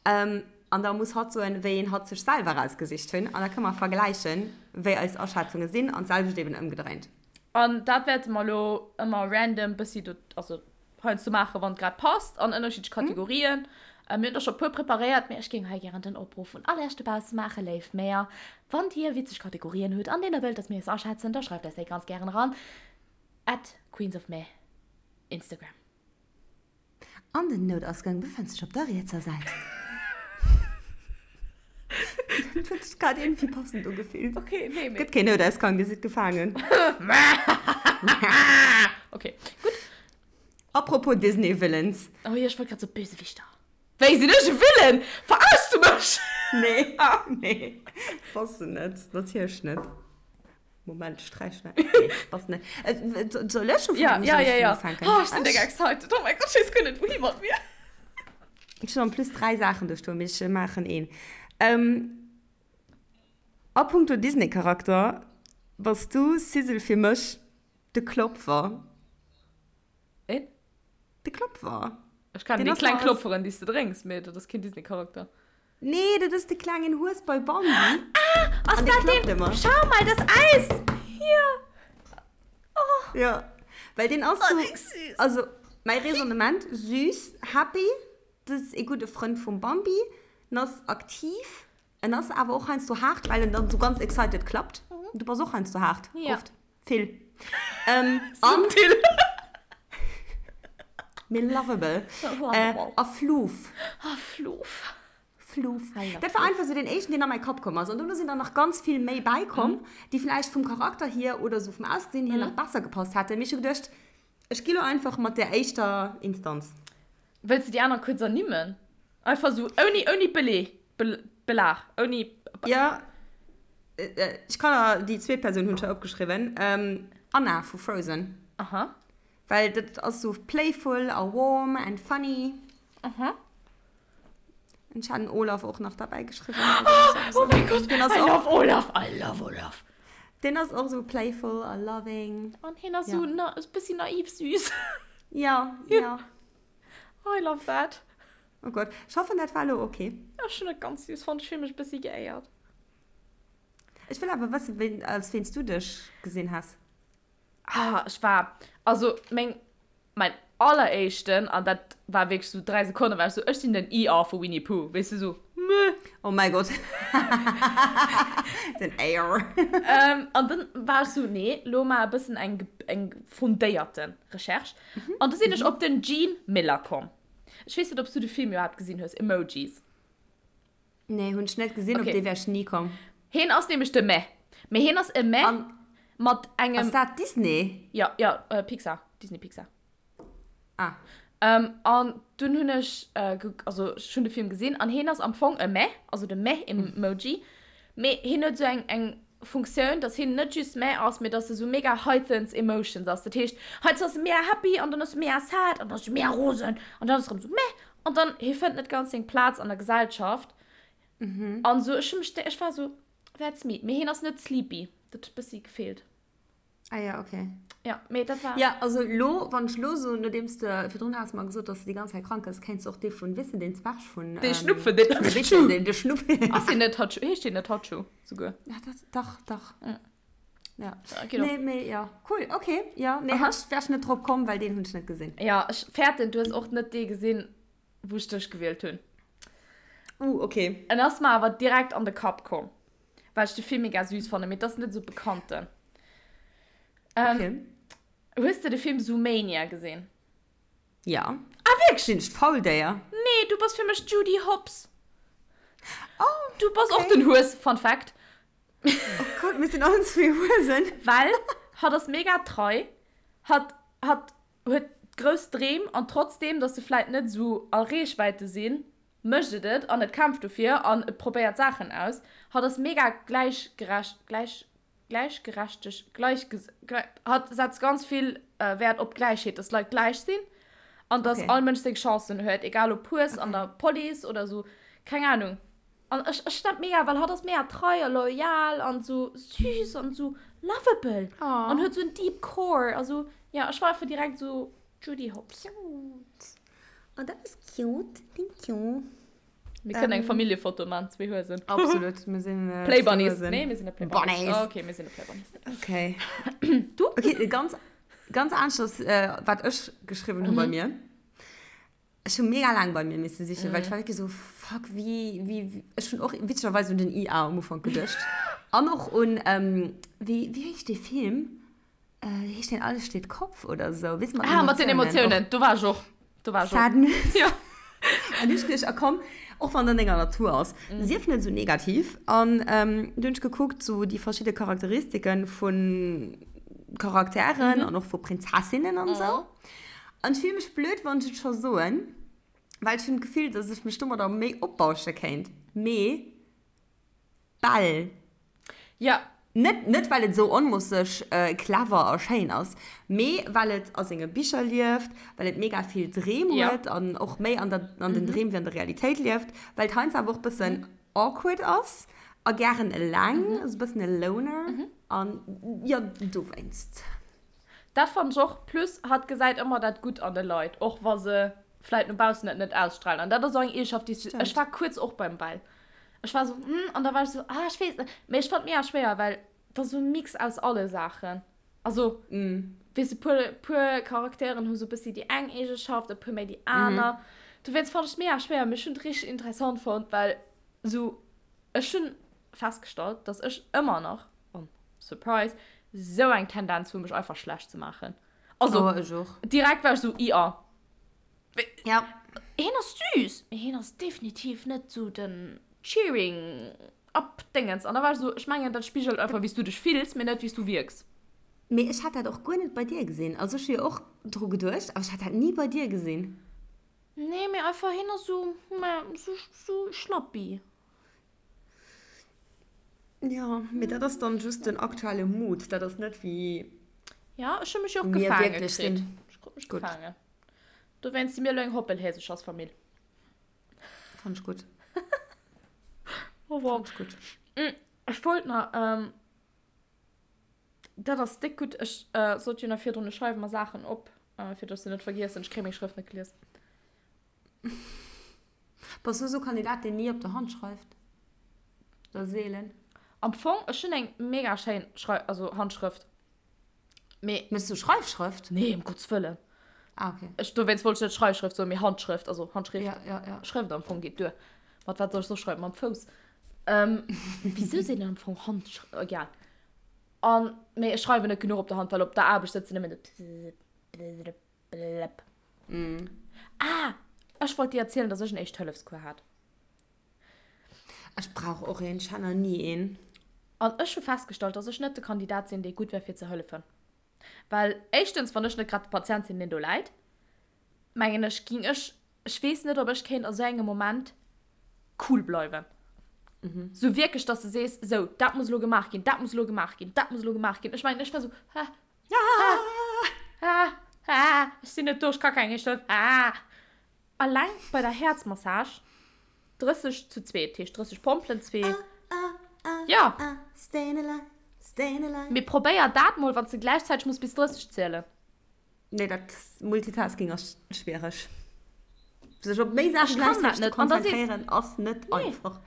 An da muss hatt soen, wéi een hatt sech selwer erausgesicht hunn. An da kënne mer vergläichen, wéi eis Aschätzunge sinn an d'selwecht eben ëmgedréint. An dat wäerte mer elo ëmmer random bëssi do, also heiansdo maachen, wann et grad passt, an ënnerschiddlech Kategorien. Mir hunn der scho e puer preparéiert, mee ech géing hei gären den Opruff un all Iech dobausse maachen, Léif Méer, wann Dir witzeg Kategorien hutt, an deenen der wëllt, dass mir eis aschätzen, da schreift eis déi ganz gären eran at queensofmeh, Instagram. An den Noutausgang befënnt sech op der rietser Säit. Dat huet sech grad iergendwéi passend ugefillt. Okay, nee, mee. Gëtt keen Noutausgang, Dir sidd gefaangen. Okay, gutt. Apropos Disney Villains. Oh jo, ech wollt grad soen, Bösewichter. Wéi, sinn ech e Villain? Verarschs du mech? Nee, nee, bass de net, natierlech net. Moment, ech sträichen dat. Nee, bass net. Soll ech ufänken? Ja, ja, Soll ech ja, ja. ufänken? Oh, ech sinn déck excited. Oh mäi Gott, ech weess guer net, wouhi mat mir. Ech hunn en plus 3 Saachen do stoen, mee ech maachen een. A punkto Disney-Charakter bass du, Sizzle, fir mech de Klopfer. Een? De Klopfer. Ech kennen déi kleng Klopferen, déi s de drénks, mee dat ass keen Disney-Charakter. Nee, dat ass de klengen Hues bei Bambi. Ah, ass dat deen? Schau mal, das Eis! Hier! Oh. Ja, well deen ass oh, so, also mäi Raisonnement, süß, happy, dat ass ee gudde Frënd vum Bambi, en ass aktiv, en ass awer och heiansdo haart, well en dann sou ganz excited klappt. Du bass och heiansdo haart, Ja. oft. Vill. Ähm, an. Subtil. Mee lovable. Lovable. A Floof. A Floof. Floof. Dat war einfach sou deen éischten, deen a mäi Kapp komm ass. An dono sinn der nach ganz vill méi bäikomm, déi vläicht vum Charakter hier oder sou vum Ausgesinn hier nach besser gepasst hätten. Mee ech hu geduecht, ech gi lo einfach mat där éischter Instanz. Wëlls de déi aner kuerz ernimmen? Einfach sou ouni, ouni Beleg, Belag, ouni. Jo, ech kann der, déi zweet Persoun hunn ech hei opgeschriwwen, Anna vu Frozen. Aha. Well dat ass sou playful a warm and funny. Aha. Ech hat den Olaf och nach derbäi geschriwwen. Oh mein Gott, I love Olaf, I love Olaf. Deen ass och sou playful a loving. An hien ass sou e bëssi naiv süß. Ja, ja. I love that. Oh Gott, ech hoffen dat war elo ok. Ech hunn et ganz süß fonnt, ech fill mech e bëssi geéiert. Ech wëll awer wëssen, wéi, als ween s du dech gesinn has. Ah, ech war, also meng, mäin alleréischten, an dat war wierklech sou 3 Sekonnen, war ech sou, ech sinn den Eeyore vu Winnie Pooh, weess du, sou. Meh. Oh mäi Gott. Den Air. Ähm, an dann war ech so, nee, lo mar e bëssen eng, eng fundéierte Recherche. An du sinn ech op den Gene Miller komm. Ech weess net, ob s du de Film iwwerhaapt gesinn hues, Emojis. Nee, hunn ech net gesinn, op Okay. dee wär ech ni komm. Heen ass nämlech de Meh. Mee heen ass e Meh An mat engem. ass dat Disney? Ja, ja, äh, Pixar. Disney Pixar. Ah. Ähm, an dunn hunn ech, äh, also ech hunn de Film gesinn an heen ass am Fong e Meh, also de Meh-Emoji, mee heen huet esou eng, eng Funktioun, dass heen net just Meh ass, mee dass e sou mega heightens emotions ass. Dat heescht, heiansdo ass e mega happy an dann ass e mega sad an dann ass e mega rosen an dann ass e rëm sou meh an dann, hee fënnt net ganz seng Plaz an der Gesellschaft. An sou, ech hu mech, ech war sou, that's me. Mee heen ass net sleepy, dat huet bëssi gefeelt. Ah ja, okay. Ja, mee dat war. Ja, also lo, wann ech lo soen, nodeems de virdrun has mer gesot, dass de déi ganz Zäit krank gëss, kéints de och dee vun, weess de, deen Zwerg vun. Dee Schnupfen, deen Hatschu. Deen, de Schnupfen. Ass deen net Hatschu? Heescht deen net Hatschu souguer? Ja, dat, dach, dach. Ja. Ja. Geet och. Nee, mee ja, cool, okay. Ja, nee, Aha. ech wär ech net drop komm, well deen hunn ech net gesinn. Ja, ech fäerten, du hues och net dee gesinn, wou ech dech gewielt hunn. Uh, okay. En ass mer awer direkt an de Kapp komm, well ech de Film mega süß fannen, mee et ass net esou bekannten. Ähm, Okay. Hues de de Film Zoomania gesinn? Ja. Ah, wierklech? Sinn ech d'Fauldéier? Nee, du bass fir mech d'Judy Hopps. Oh, Du bass och okay. den Hues, Fun Fact. Oh Gott, mir sinn allen zwee Huesen. Well hatt ass mega trei, hatt, hatt huet grouss Dreem an trotzdeem, dass se vläit net esou a Reechwäite sinn, mécht et et an et kämpft dofir an et probéiert Saachen aus. Hatt ass mega gläichgerecht, gläich, gläichgerechteg, gläichges, hatt setzt ganz vill Wäert op Gläichheet, dass d'Leit gläich sinn an dass Okay. all Mënsch seng Chancen huet, egal ob Hues an Okay. der Police oder esou, keng Ahnung. An ech, ech dat mega, well hatt ass mega trei a loyal an sou süß an sou lovable oh. an huet sou en deep core. Also ja, ech war einfach direkt sou Judy Hopps. Cute. Oh, dat ass cute. Thank you. Mir kënnen eng Familljefoto man, zwee Huesen. Absolut, mir sinn äh, Play Bunnies. Huesen. Nee, mir sinn net Play Bunnies. Bunnies. Oh, okay, mir sinn net Play Bunnies. Okay. Du? Okay, ganz, ganz aneschters, äh, wat ech geschriwwen hu bei mir. Ech hu mega laang bei mir misse sichen, well ech war wierklech esou, fuck, wéi, wéi, ech hunn och witzegerweis un den IA am Ufank geduecht. An och un, wéi, wéi heescht dee Film? Heescht deen Alles steht Kopf oder esou? Weess de, mat den Ah, mat den Emotiounen. Emotiounen, do war ech och. Do war ech och. Sadness. Jo. An du hunn ech geduecht, ah komm, och wann et an denger Natur ass, sief net esou negativ. An du hunn ech gekuckt, esou déi verschidde Charakteristiken vu Charakteren an och vu Prinzessinnen an esou. An ech fille mech blöd, wann ech et scho soen, well ech hunn d'Gefill, dass ech mech domadder méi opbausche kéint. Mee d'Belle. Ja. Net, net well et esou onmoosseg clever a schéin ass, mee well et a senge Bicher lieft, well et mega vill Dreem huet an och méi an der, an den Dreem wéi an der Realitéit lieft, well et heiansdo awer och bëssen awkward ass a gären eleng, esou e bëssen e Loner. An jo, dowéinst. Dat fannen ech och, plus hatt gesäit ëmmer dat Gutt an de Leit, och wa se vläit no baussen et net ausstrahlen. An dat ass och eng Eegeschaft, déi ech, ech war kuerz och beim Bell, ech war esou hm, an da war ech esou ah ech weess net, mee ech fannen et mega schwéier, well et ass esou e Mix aus alle Saachen. Also weess de, puer, puer Charakteren hu sou e bëssi déi eng Eegeschaft, e puer méi déi aner. Dowéinst fannen ech et mega schwéier, mee ech hunn et richteg interessant fonnt, well esou ech hunn festgestallt, dass ech ëmmer nach, oh, surprise, sou eng Tendenz hu mech einfach schlecht ze maachen. Also, Oh, ech och. direkt war ech sou, IA. Ja. Hien ass süß, mee hien ass definitiv net sou den Cheering up Dingens. An da war ech sou, ech mengen dat spigelt einfach wéi s du dech fills, mee net wéi s du wierks. Mee ech hat dat och guer net bei dir gesinn. Also ech hu jo och dru geduecht, awer ech hat dat ni bei dir gesinn. Nee, mee einfach hien ass sou, sou, sou schlappi. Ja, mee dat ass dann just den aktuelle Mood. Dat ass net wéi Ja, ech hu mech jo och mir gefaange wierklech kritt. sinn. Ech krut mech Gutt. gefaangen. Dowéinst si mir elo eng Hoppelhäsechersfamill. Fand ech gutt. Oh wow. Fand ech gutt. Ech wollt nach, ähm, dat ass déck gutt. Ech äh, sollt jo nach virdrun, ech schreiwe mer Saachen op, äh, fir dass ech se net vergiessen. Ech kréie meng Schrëft net gelies. Bass du esou Kandidat deen ni op der Hand schreift? Oder seelen? Am Fong, ech hunn eng mega schéin Schrei also Handschrëft. Mee. Méchs du Schreifschrëft? Nee, ëm Gottes Wëllen. Ah, okay. Ech, dowéinst wollt ech net Schreifschrëft soen, mee Handschrëft, also Handschrift. Ja, ja, ja. Schrëft am Fong geet duer. Mat wat soll ech soss schreiwen? Mam Fouss. Ähm, wisou seet een am Fong Hand? Egal. An, mee ech schreiwen net genuch op der Hand, well op der Aarbecht sëtzen nëmmen de Blëpp. Ah, ech wollt dir erzielen, dass ech en Éischt-Hëllefscours hat. Ech brauch och een, ech hat nach ni een. An ech hu festgestallt, dass ech net de Kandidat sinn, dee gutt wär fir ze hëllefen. Well éischtens, wann ech net grad de Patient sinn, deen do läit, mengen ech, ging ech, ech weess net, ob ech kéint a sou engem Moment cool bleiwen. Sou wierklech, dass de sees, sou, dat muss elo gemaach ginn, dat muss elo gemaach ginn, dat muss elo gemaach ginn. Ech mengen, ech wär sou, ha, ha, ha, ha, ech sinn net do, ech ka keng Éischt Hëllef, ha. Alleng bei der Häerzmassage 30 zu zwee, dat heescht 30 Pompelen, zwee, jo. Mee probéier dat mol, wann s de gläichzäiteg muss bis 30 zielen. Nee, dat Multitasking ass schwiereg. Sech op méi Saache gläichzäiteg ze konzentréieren ass net einfach.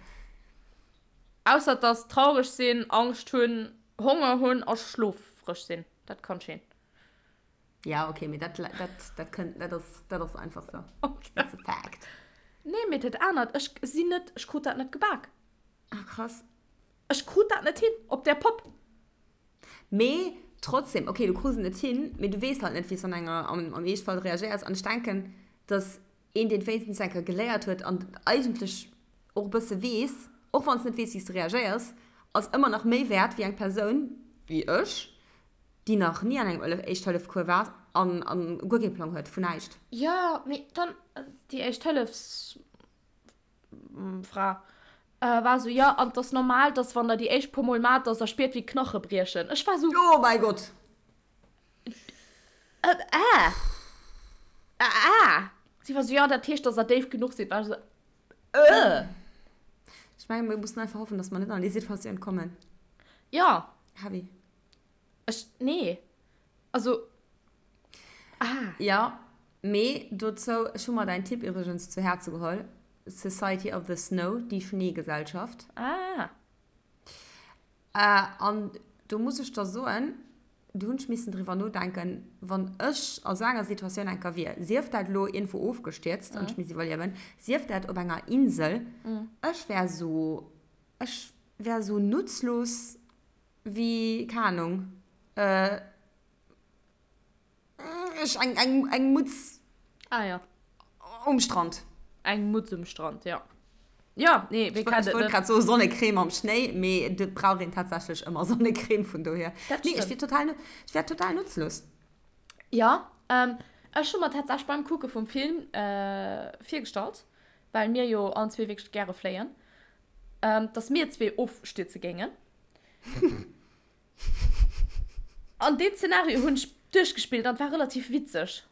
Ausser dass traureg sinn, Angscht hunn, Honger hunn a schlofreg sinn. Dat kann ech een. Ja, okay, mee dat, dat, dat kënnt, dat ass, dat ass einfach sou. Okay. That's a fact. Nee, mee dat anert, ech sinn net, ech krut dat net gebak. Ah, krass. Ech krut dat net hin, op där Popp. Mee trotzdem, okay, du krus et net hin, mee du weess halt net, wéi s du an enger, am, am Eeschtfall reagéiers. An ech denken, dass een, deen et wéinstens eng Kéier geléiert huet an eigentlech och e bësse weess, och wann s net weess, wéi s du reagéiers, ass ëmmer nach méi wäert wéi eng Persoun, wéi ech, déi nach ni an engem Éischt-Hëllef-Cours war an, an guer kee Plang huet vun näischt. Jo, mee dann déi Éischt-Hëllefs. Fra war sou, jo, an 't ass normal, dass wann der déi éischt puer Mol maacht, dass der spiert wéi d'Knache briechen. Ech war sou. Oh mäi Gott! Äh, äh, äh. Si war sou, jo, dat heescht, dass der déif genuch sidd. War ech sou, äh. Ech mengen, mir mussen einfach hoffen, dass mer net an déi Situatioun kommen. Jo. Heavy. Ech, nee. Also, ah. Jo, mee dozou, ech hu mer däin Tipp iwwregens zu Häerze geholl, Society of the Snow, déi Schneegesellschaft. Ah. An do muss ech der soen, do hunn ech missen driwwer nodenken, wann ech a sou enger Situatioun eng Kéier wier, sief dat elo iergendwou ofgestierzt an ech misst iwwerliewen, sief dat op enger Insel, ech wär sou, ech wär sou nutzlos wéi, keng Ahnung, ech, eng, eng, eng Mutz. Ah ja. Um Strand. Eng Mutz um Strand, ja. Ja, nee, wee kennt et net. Ech wollt grad soen Sonnecreme am Schnéi, mee et brauch een tatsächlech ëmmer Sonnecreme, vun dohier. Dat stimmt. Nee, ech wier total, ech wär total nutzlos. Ja, ech hu mer tatsächlech beim Kucke vum Film virgestallt, well mir jo allen zwee wierklech gäre fléien, dass mir zwee ofstierze géingen. An deen Szenario hunn ech duerchgespillt an et war relativ witzeg.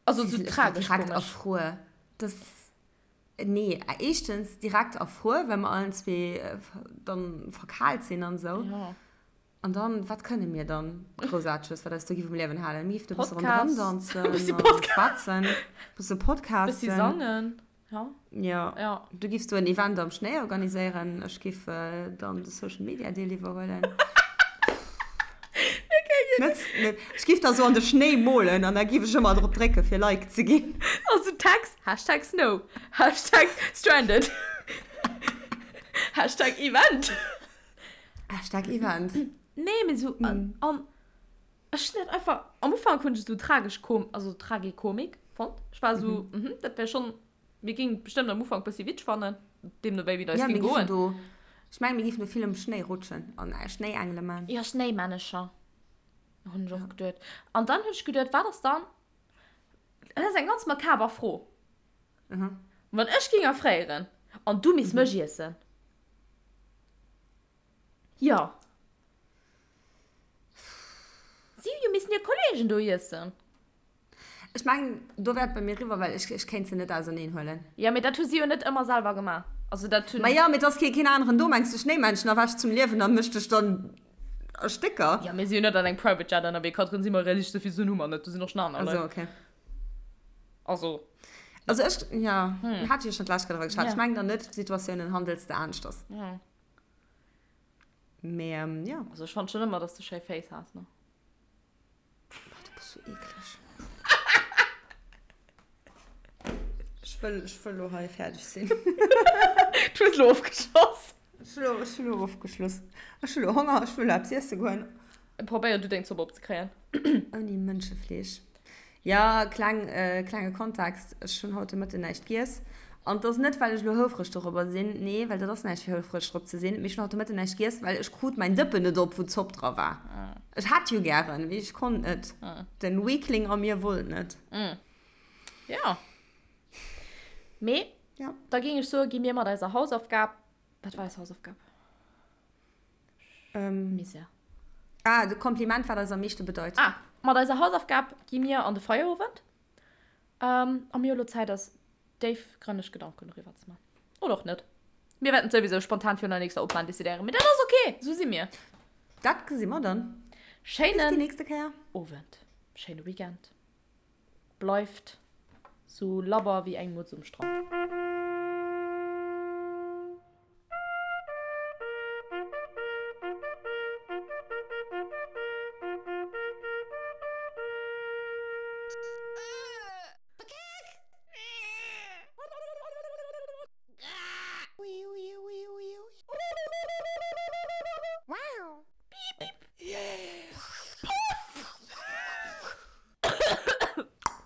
Also sou tragesch komesch. Direkt erfruer. Das, nee, éischtens direkt erfruer, well mer allen zwee dann verkaalt sinn an esou. Ja. An dann, wat kënne mir dann Groussaarteges, wat eis do giff um Liewen halen? Mir giff do e bësse ronderëm danzen, Bëssi Podcast. schwätzen, bësse podcasten. Bëssi sangen. Ja. Ja. Ja. Du giffs do en Event am Schnéi organiséieren, ech giff dann de Social Media Deel iwwerhuelen. Net, net, ech giff da sou an de Schnéi molen an da giff ech ëmmer drop drécke fir Like ze ginn. Also Tags, Hashtag Snow, Hashtag Stranded, Hashtag Event. Hashtag Event. Nee, mee sou, an, an ech hunn dat einfach, am Ufank hunn ech et sou tragesch kom, also Tragikomik fonnt. Ech war sou, mhm, dat wär schonn, mir géingen et bestëmmt am Ufank bëssi witzeg fannen, deemno wéi wéi et eis Ja, géing mir giffen goen. do, ech mengen, mir giffen do vill um Schnéi rutschen an Schnéiengele man. Jo, Schnéimännecher, hunn ech och geduet. An dann hunn ech geduet, wat ass dann, dat ass eng ganz makaber Fro, wann ech géing erfréieren an du misst mech iessen? Jo. Si hu jo missen hir Kollegen do iessen. Ech mengen, do wär et bei mir eriwwer, well ech, ech kéint se net auserneen huelen. Jo, mee dat hu si jo net ëmmer selwer gemaach. Also dat hunn. Ma jo, mee et ass kee, keen aneren do. Mengs de, Schnéimännchen erwächt zum Liewen a mécht dech dann a Stécker? Jo, mir si jo net an engem Private Jet ënnerwee, Katrin, si mer realistesch, souvill Suen hu mer net, do sinn och schon aner Leit. Also, okay. Also. Also ech, jo, hat jo schon d'lescht Kéier driwwer geschwat. Ech mengen dann net, Situatiounen handels de aneschters. Jo. Mee jo. Also ech fand schon ëmmer, dass de schéi Féiss has, ne? Boah, du bass sou eekleg. Ech. Ech wëll, ech wëll lo hei fäerdeg sinn. Du hues lo ofgeschloss. Ech hu lo, ech hu lo ofgeschloss. Ech hu lo Honger, ech wëll lo eppes iesse goen. Probéier du deng Zopp opzekréien. Ouni Mënschefleesch. Jo, kleng, klenge Kontext, ech hunn haut de Mëtten näischt giess. An et ass net, well ech elo houfreg dorobber sinn, nee, well dat ass näischt fir houfreg drop ze sinn, mee ech hunn haut de Mëtten näischt giess, well ech krut mäin Dëppen net op, wou d'Zopp dra war. Ech hätt jo gären, mee ech konnt net. Den Weakling a mir wollt net. Jo. Mee da géing ech soen, gi mir mat eiser Hausaufgab, wat war eis Hausaufgab? Ähm, Misär. Ah, de Kompliment, wat eis am meeschte bedeit. Ah, mat eiser Hausaufgab gi mir an de Feierowend. Ähm, a mir hu lo Zäit, eis déifgrënneg Gedanken doriwwer ze man. Oder och net. Mir wäerten et souwisou spontan virun der nächster Opnam decidéieren. Mee dat ass ok, esou si mir. Dat gesi mer dann. Schéinen Bis déi nächste Kéier. Owend. Schéine Weekend. Bleift sou labber wéi eng Mutz um Strand.